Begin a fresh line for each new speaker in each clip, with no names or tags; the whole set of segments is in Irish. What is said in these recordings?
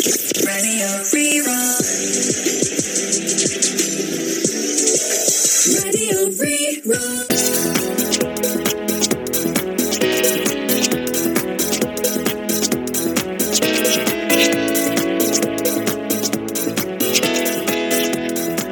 Radio Rí-Rá. Radio Rí-Rá.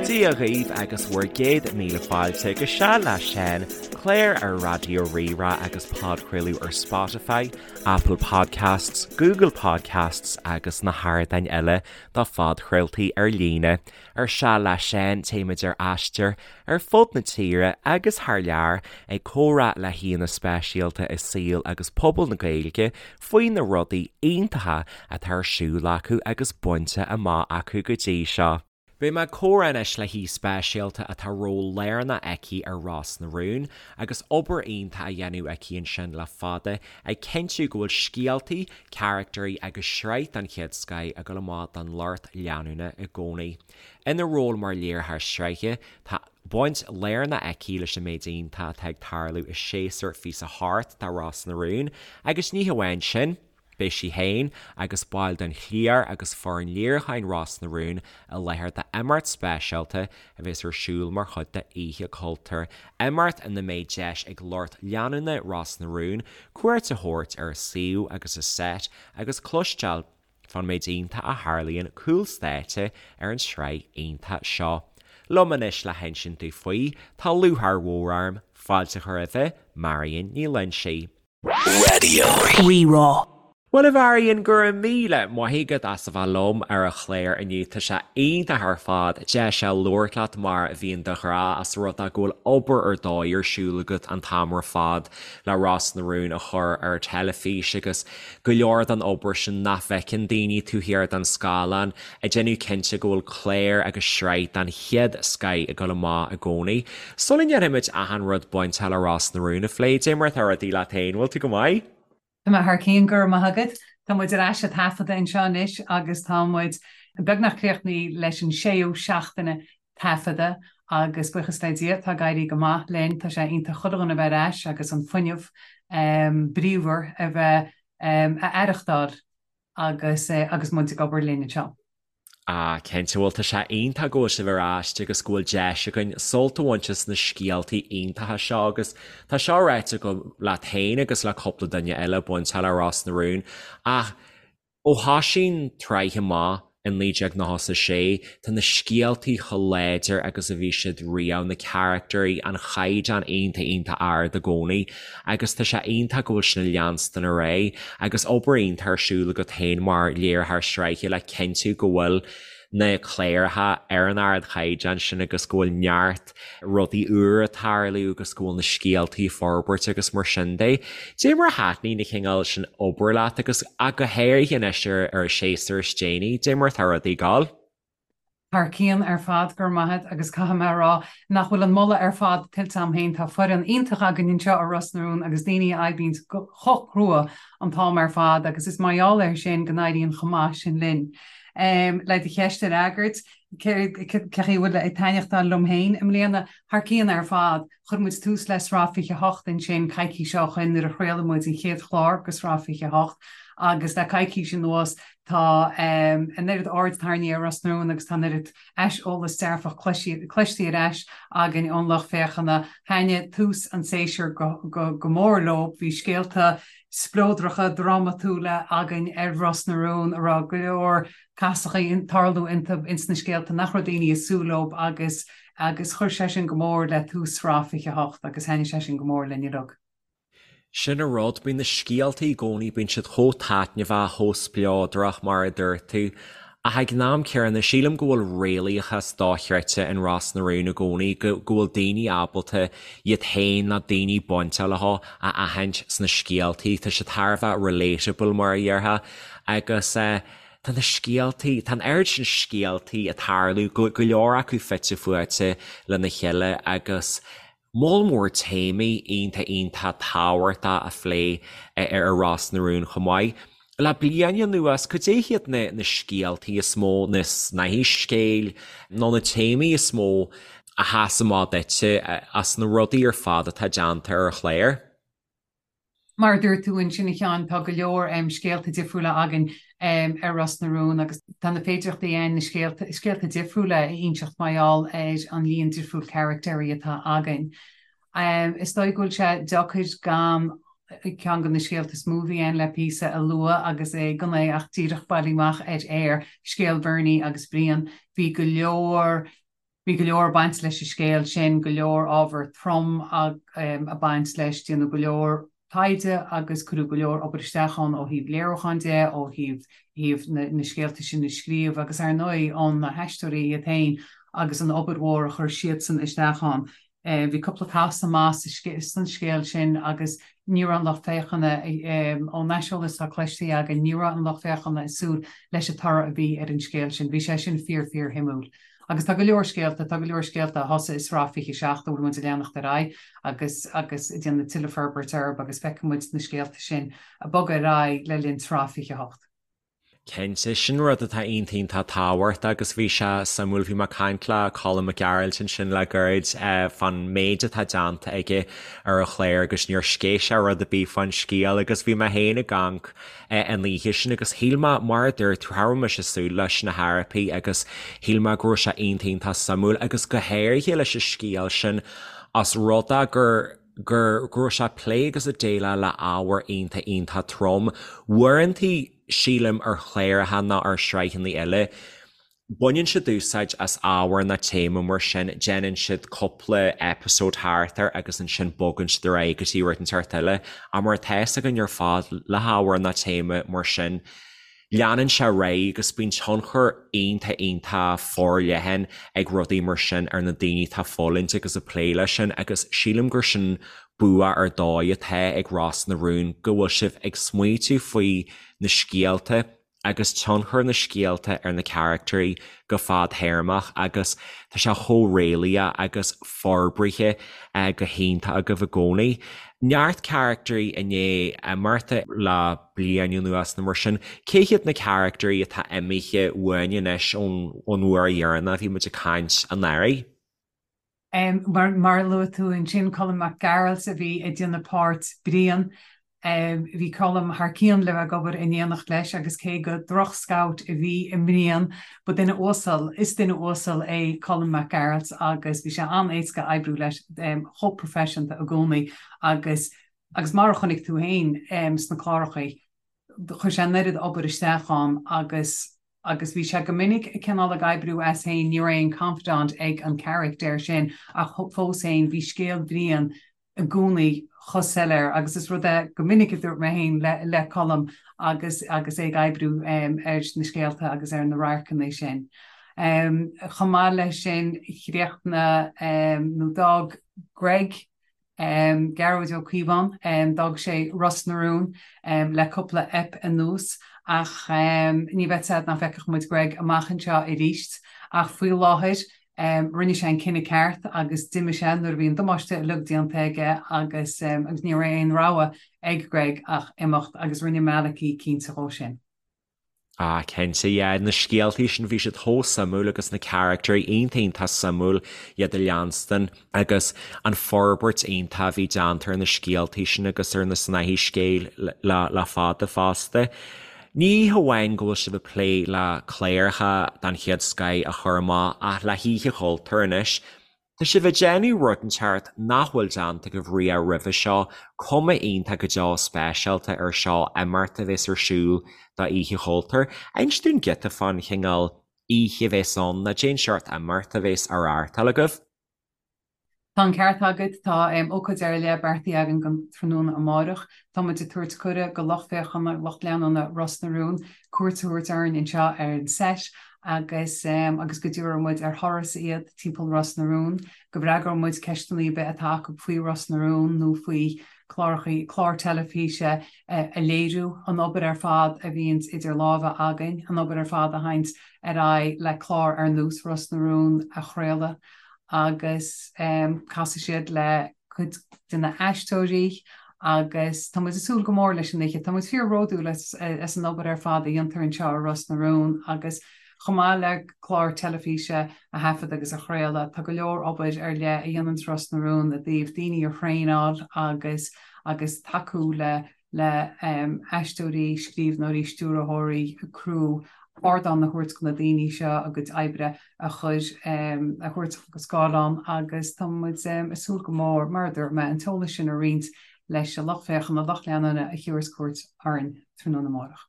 Dia dhaoibh agus bhur gcéad míle fáilte go Seal le Seán, clár ar Raidió Rí-Rá agus podchraoladh ar Spotify, Apple Podcasts, Google Podcasts agus na hardáin eile do phodchraoltaí ar líne. Ar Seal le Seán, téimid ar aistear ar fud na tíre agus thar lear ag comhrá le haíonna speisialta i saol agus pobal na Gaeilge faoi na rudaí iontacha atá ar siúl acu agus bainte amach acu go dtí seo. Beidh mé ag comhrá anois le haoi speisialta atá ról lárnach aici ar Ros na Rún agus obair iontach á dhéanamh aici ansin le fada ag cinntiú go bhfuil scéaltaí, caractairí agus sraith den chéad scoith ag dul amach don lucht leanúna i gcónaí. Ina ról mar léiritheoir sraithe, tá baint lárnach aici leis an méid iontach atá ag tarlú i séasúr 28 de Ros na Rún agus ní hamháin sin, Beidh sí féin agus baill den chliar agus foireann léiriúcháin Ros na Rún i láthair d'imeacht speisialta a bheas ar siúl mar chuid de Oíche Chultúir, imeacht ina mbeidh deis ag lucht leanúna Ros na Rún cuairt a thabhairt ar a suíomh agus a seit agus cloisteáil fán méid iontach a tharlaíonn cúl stáitse ar an tsraith iontach seo. Liom anois le hinsint dúinn faoi tá lúcháir mhór orm fáilte a chur roimh Marion Ní Loinsigh.
Raidió Rí-Rá.
Bhuel a Mharion, go raibh míle maith agat as a bheith liom ar an chlár inniu. Tá sé iontach ar fad deis a labhairt leat mar a bhíonn de ghnáth as rud é go bhfuil obair ar dóigh ar siúl agat an t-am ar fad le Ros na Rún a chur ar teilifís agus go leor den obair sin nach bhfeiceann daoine taobh thiar den scáileán ag déanamh cinnte go bhfuil clár agus sraith den chéad scoith ag dul amach i gcónaí. Sula ndéanfaimid achan rud bainteach le Ros na Rún a phlé, dé mar atá rudaí leat féin, bhfuil tú go maith?
Tá mé thar cionn, go raibh maith agat. Tá muid ar ais ag taifeadadh anseo anois agus tá muid beagnach críochnaithe leis an séú seachtaine taifeadta agus buíochas le Dia tá ag éirí go maith linn. Tá sé iontach chuile dhuine a bheith ar ais agus an fuinneamh bríomhar a bheith a aireachtáil agus agus muid ag obair linn anseo.
Ah, cinnte, bhuel tá sé iontach go bhfuil sibh ar ais agus go bhfuil deis againn sult a bhaint as na scéaltaí iontacha seo agus tá seo ráite agam leat féin agus le cúpla duine eile bainteach le Ros na Rún ach ó thosaigh an tsraith amach in 1996 tá na scéaltaí chomh láidir agus a bhí siad riamh, na caractairí, an chaighdeán iontach iontach ard i gcónaí agus tá sé iontach go bhfuil sin ag leanstan ar aghaidh agus obair iontach ar siúl agat féin mar léiritheoir sraithe le cinntiú go bhfuil na cláracha ar an ardchaighdeán sin agus go bhfuil neart rudaí úra ag tarlú agus go bhfuil na scéaltaí ag forbairt agus mar sin de. Dé mar a thaitníonn an cineál sin obair leat agus ach go háirithe anois ar ar an séasúr is déanaí, dé mar atá rudaí ag gabháil?
Thar cionn ar fad, go raibh maith agat, agus caithfidh mé a rá nach bhfuil an moladh ar fad tuillte agam féin, tá foireann iontach againn anseo i Ros na Rún agus daoine a oibríonns chomh crua an t-am ar fad agus is mar gheall air sin go n-éiríonn chomh maith sin linn. Le do cheist a fhreagairt, cé chaoi a bhfuil ag taitneachtáil liom féin i mbliana? Thar cionn ar fad. Chuir muid tús le Sraith 28 ansin coicís ó shoin nuair a chraol muid an chéad chlár de Sraith 28 agus le coicís anuas tá an oiread aird tarraingthe ar Ros na Rún agus tá an oiread aiseolas dearfach cloiste ar ais againn ón lucht féachana. Thaitnigh tús an tséasúir go mór leo. Bhí scéalta spleodracha drámatúla againn ar Ros na Rún a raibh go leor casachaí ag tarlú iontu ins na scéalta nach raibh daoine ag súil leo agus agus chuir sé sin go mór le tús Sraith 28 agus thaitnigh sé sin go mór linn uilig.
Sin an rud, bíonn na scéaltaí i gcónaí, bíonn siad chomh taitneamhach, chomh spleodrach mar a dúirt tú. Ach ag an am céanna, sílim go bhfuil réalaíochas dochreidte in Ros na Rún i gcónaí, go go bhfuil daoine ábalta iad féin nó daoine bainteach leo a aithint sna scéaltaí, tá siad thar a bheith relatable mar a dhéarfá agus eh, Tá na scéaltaí, tá an oiread sin scéaltaí ag tarlú, go leor acu fite fuaite lena chéile agus moll mór téamaí iontach iontach tábhachtach á phlé ar Ros na Rún chomh maith. Le bliain anuas, cad é hiad na na scéaltaí is mó, na snáithí scéil nó na téamaí is mó a sheas amach duitse as na rudaí ar fad atá déanta ar an chlár?
Mar a dúirt tú ansin a Sheáin, tá go leor scéalta difriúla againn ar Ros na Rún agus tá na féidearthachtaí ann na scéalta, scéalta difriúla a inseacht mar gheall ar an líon difriúil caractéirí atá againn. Is dóigh go bhfuil sé deacair gan ceann de na scéalta is mó a bhí ann le píosa a lua agus é gan é ach díreach bailí amach ar aer, scéal Bhernie agus Brian. Bhí go leor Bhí go leor ag baint leis an scéal sin, go leor ábhar trom ag baint leis, déanadh go leor taighde agus cuireadh go leor obair isteach ann ó thaobh léiriúcháin de, ó thaobh thaobh na na scéalta sin a scríobh agus ar ndóigh ó na haisteoirí iad féin agus an obair mhór a chuir siadsan isteach ann. Bhí cúpla casadh maith san scéal sin agus ní raibh an lucht féachana, ón aiseolas atá cloiste againn, ní raibh an lucht féachana ag súil leis an toradh a bhí ar an scéal sin. Bhí sé sin fíor fíor shuimiúil. Agus tá go leor scéalta, tá go leor scéalta a thosaigh i sraith 27 a bhfuil muid ag leanacht ar aghaidh agus agus ag déanamh tuilleadh forbairt orthu agus feicfidh muid na scéalta sin ag bogadh ar aghaidh le linn sraith 28.
Cinnte, sin rud atá iontach iontach tábhachtach agus bhí sé suimiúil, bhí mé ag caint le Colm Mac Gearailt ansin le gairid fán méid atá déanta aige ar an chlár agus níor sceith sé rud ar bith fán scéal agus bhí mé féin ag amharc an oíche sin agus shíl mé, mar a dúirt tú, cha raibh mise ag súil leis na hathruithe agus shíl mé go raibh sé iontach iontach suimiúil agus go háirithe leis an scéal sin os rud é gur gur go raibh sé ag plé agus ag déileáil le ábhar iontach iontach trom. Uaireantaí, sílim, ar chláracha nó ar shraitheanna eile, baineann siad úsáid as ábhar nó téama mar sin, déanann siad cúpla episode thart air agus ansin bogann siad ar aghaidh go dtí rud inteacht eile. Ach mar atá fhios againn ar fad, le hábhar nó téama mar sin, leanann sé ar aghaidh agus bíonn tionchar iontach iontach forleathan ag rudaí mar sin ar na daoine atá ag fulaingt agus ag plé leis sin agus sílim gur sin bua ar dóigh atá ag Ros na Rún go bhfuil sibh ag smaoitiú faoi na scéalta agus tionchar na scéalta ar na caractéirí go fadtéarmach agus tá sé chomh réalaíoch agus forbraithe go hiontach agaibh i gcónaí. Neart caractéirí i ndiaidh imeacht le bliain anuas nó mar sin. Cé hiad na caractéirí atá imithe uainn anois ón uair dheireanach a bhí muid ag caint anuraidh?
Mar a luaigh tú ansin, Colm Mac Gearailt a bhí ag déanamh páirt Brian. Bhí Colm thar cionn le bheith ag obair in éineacht leis agus cé go droch-scout a bhí i mBrian, ba duine uasal, is duine uasal é Colm Mac Gearailt agus bhí sé an-éasca oibriú leis, chomh proifisiúnta i gcónaí agus Agus mar a chonaic tú féin sna cláracha, chuir sé an oiread obair isteach ann agus agus bhí sé go minic cineál ag oibriú as féin, ní raibh aon confidant ag an character sin ach fós féin bhí scéal Bhriain i gcónaí chomh soiléir agus is rud é go minic a dúirt mé féin le le Colm agus agus é ag oibriú ar na scéalta agus ar na radharcanna sin. Chomh maith leis sin chríochnaigh nó d'fhág Greg Gearóid Ó Cíobháin, d'fhág sé Ros na Rún le cúpla ep anuas ach ní bheadh fhios a'd nach bhfeicfeadh muid Greg amach anseo arís. Ach faoi láthair rinne sé an cinneadh ceart agus d'imigh sé nuair a bhí an damáiste uilig déanta aige agus agus ní raibh aon rogha ag Greg ach imeacht agus rinne Malachy cinnte dhó sin.
Ah cinnte, yeah, na scéaltaí sin bhí siad chomh suimiúil agus na caractéirí iontach iontach suimiúil iad a leanstan agus an forbairt iontach a bhí déanta ar na scéaltaí sin agus ar na snáithí scéil le le fada fosta. Ní hamháin go bhfuil sibh ag plé le cláracha den chéad scoith a chur amach ach le hOíche Chultúir anois, Tá sibh ag déanamh rud inteacht nach bhfuil déanta agaibh riamh roimhe seo, cuma iontach go deo speisialta ar seo, imeacht a bheas ar siúl do Oíche Chultúir. Inis dúinn giota fán chineál oíche a bheas ann, nó cén seort imeacht a bheas á reáchtáil agaibh.
Tá an ceart agat, tá ócáid ar leith beartaithe againn don tráthnóna amáireach. Tá muid ag tabhairt cuireadh go lucht féachana, lucht leanúna Ros na Rún, cuairt a thabhairt orainn anseo ar an seit agus agus go dtabharfaidh muid ar thuras iad timpeall Ros na Rún, go bhfreagróidh muid ceisteanna ar bith atá acu faoi Ros na Rún nó faoi chláracha, cláir teilifíse a léiriú, an obair ar fad a bhíonns idir lámha againn, an obair ar fad a théanns ar aghaidh le clár ar nós Ros na Rún a chraoladh agus casfaidh siad le cuid de na haisteoirí agus tá muid ag súil go mór leis an oíche. Tá muid fíor-bhródúil as an obair ar fad a dhéantar anseo i Ros na Rún agus chomh maith le clár teilifíse a thaifead agus a chraoladh, tá go leor obair ar leith a dhéananns Ros na Rún i dtaobh daoine a thraenáil agus. agus tacú le le aisteoirí, scríbhneoirí, stiúrthóirí, criú, ardán a thabhairt do na daoine seo a gcuid oibre a chur, a thabhairt go scáileán agus tá muid ag súil go mór, mar a dúirt mé, an t-eolas sin a roinnt leis an lucht féachana, lucht leanúna a thiúrfas cuairt orainn tráthnóna amárach.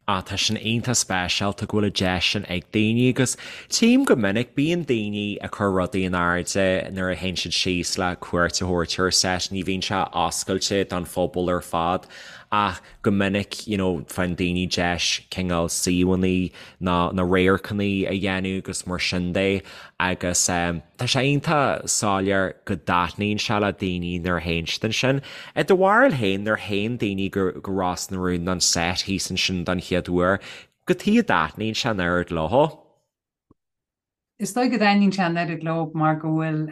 Ah, tá sin iontach speisialta go bhfuil an deis sin ag daoine agus tchím go minic, bíonn daoine ag cur rudaí in airde nuair a théann siad síos le cuairt a thabhairt ar set, ní bhíonn sé oscailte don phobal ar fad ach go minic you know faigheann daoine deis cineál suíomhanna nó na radharcanna a dhéanamh agus mar sin de agus tá sé iontach soiléir go dtaitníonn sé le daoine nuair a théann siad ansin. I do bharúil féin, nuair a théann daoine go go Ros na Rún don set thíos ansin don chéad uair, cad chuige a dtaitníonn sé an oiread leo?
Is dóigh go dtaitníonn sé an oiread leo mar go bhfuil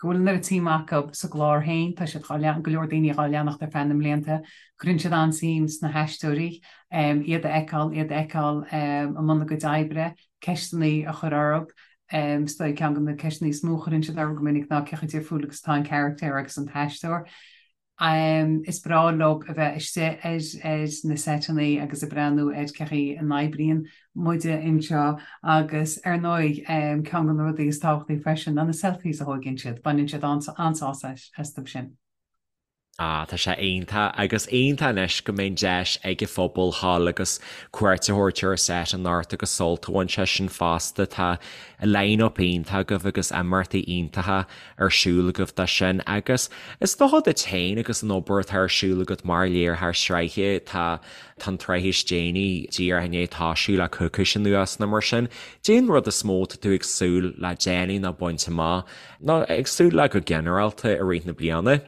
go bhfuil an oiread suim acu sa gclár féin, tá siad dhá go leor daoine dhá leanacht ar feadh na mblianta, cuireann siad an-suim sna haisteoirí, iad a fheiceáil, iad a fheiceáil i mbun a gcuid oibre, ceisteanna a chur orthu. Is dóigh ceann de na ceisteanna is mó a chuireann siad orthu go minic ná cé chomh difriúil agus atá an carachtar agus an t-aisteoir. Is breá leo a bheith istigh ar na seiteanna agus ag breathnú ar cé chaoi a n-oibríonn muide anseo agus ar ndóigh ceann de na rudaí is tábhachtaí freisin ná na selfies a thóigeann siad, baineann siad an-sásamh astu sin.
Ah, tá sé iontach agus iontach anois go mbeidh an deis ag an phobal dhul agus cuairt a thabhairt ar an set anocht agus sult a bhaint as sin fosta. Tá line-up iontach agaibh agus imeachtaí iontacha ar siúl agaibh dó sin agus is dócha duit féin agus an obair atá ar siúl agat mar léiritheoir sraithe, tá tá an tsraith is déanaí díreach i ndiaidh toisiú le coicís anuas nó mar sin. Cad é an rud is mó atá tú ag súil le déanamh nó baint amach nó ag súil le go ginearálta i rith na bliana?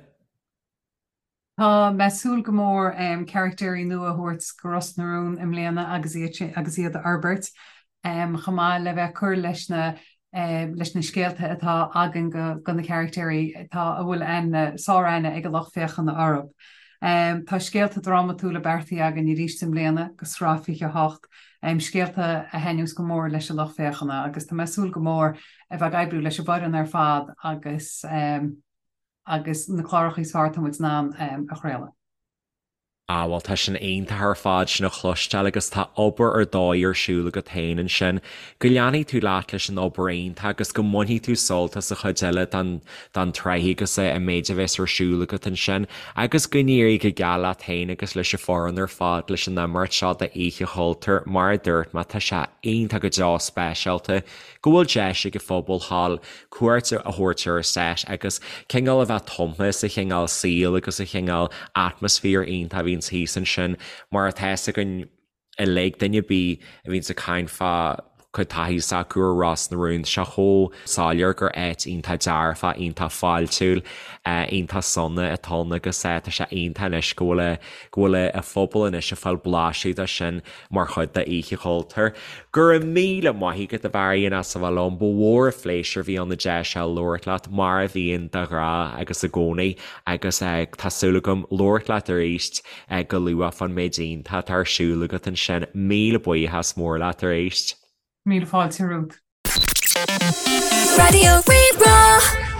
Tá mé ag súil go mór caractéirí nua a thabhairt go Ros na Rún i mbliana agus iad agus iad a fhorbairt, chomh maith le bheith ag cur leis na leis na scéalta atá againn go go na caractéirí atá a bhfuil aithne, sár-aithne ag an lucht féachana orthu. Tá scéalta drámatúla beartaithe againn arís i mbliana go sraith 28, scéalta a thaitneos go mór leis an lucht féachana agus tá mé ag súil go mór a bheith ag oibriú leis an bhfoireann ar fad agus agus na cláracha is fearr atá muid in ann a chraoladh.
Ah bhuel tá sin iontach ar fad sin a chloisteáil agus tá obair ar dóigh ar siúl agat féin ansin. Go leanfaidh tú leat leis an obair iontach agus go mbainfidh tú sult as an chuid eile den den tsraith agus an méid a bheas ar siúl agat ansin agus go n-éirí go geal leat féin agus leis an foireann ar fad leis an imeacht seo d'Oíche Chultúir. Mar a dúirt mé tá sé iontach go deo speisialta go bhfuil deis ag an phobal thall cuairt a thabhairt ar an set agus cineál a bheith tumtha sa chineál saoil agus sa chineál atmaisféar iontach a bhíonns thíos ansin mar atá fhios againn uilig, duine ar bith a bhíonns ag caint fá cuid taithí s'acu ar Ros na Rún, tá sé chomh soiléir gur áit iontach dearfach, iontach fáiltiúil, iontach sona atá ann agus tá sé iontach anois go bhfuil go bhfuil an phobal anois ag fáil blaiseadh de sin mar chuid d'Oíche Chultúir. Go raibh míle maith agat a Mharion as a bheith liom, ba mhór an phléisiúr a bhí ann an deis seo labhairt leat, mar a bhíonn de ghnáth agus i gcónaí, agus tá súil agam labhairt leat arís go luath fán méid iontach atá ar siúl agat ansin. Míle buíochas mór leat arís.
Míle fáilte romhat.
Raidió Rí-Rá.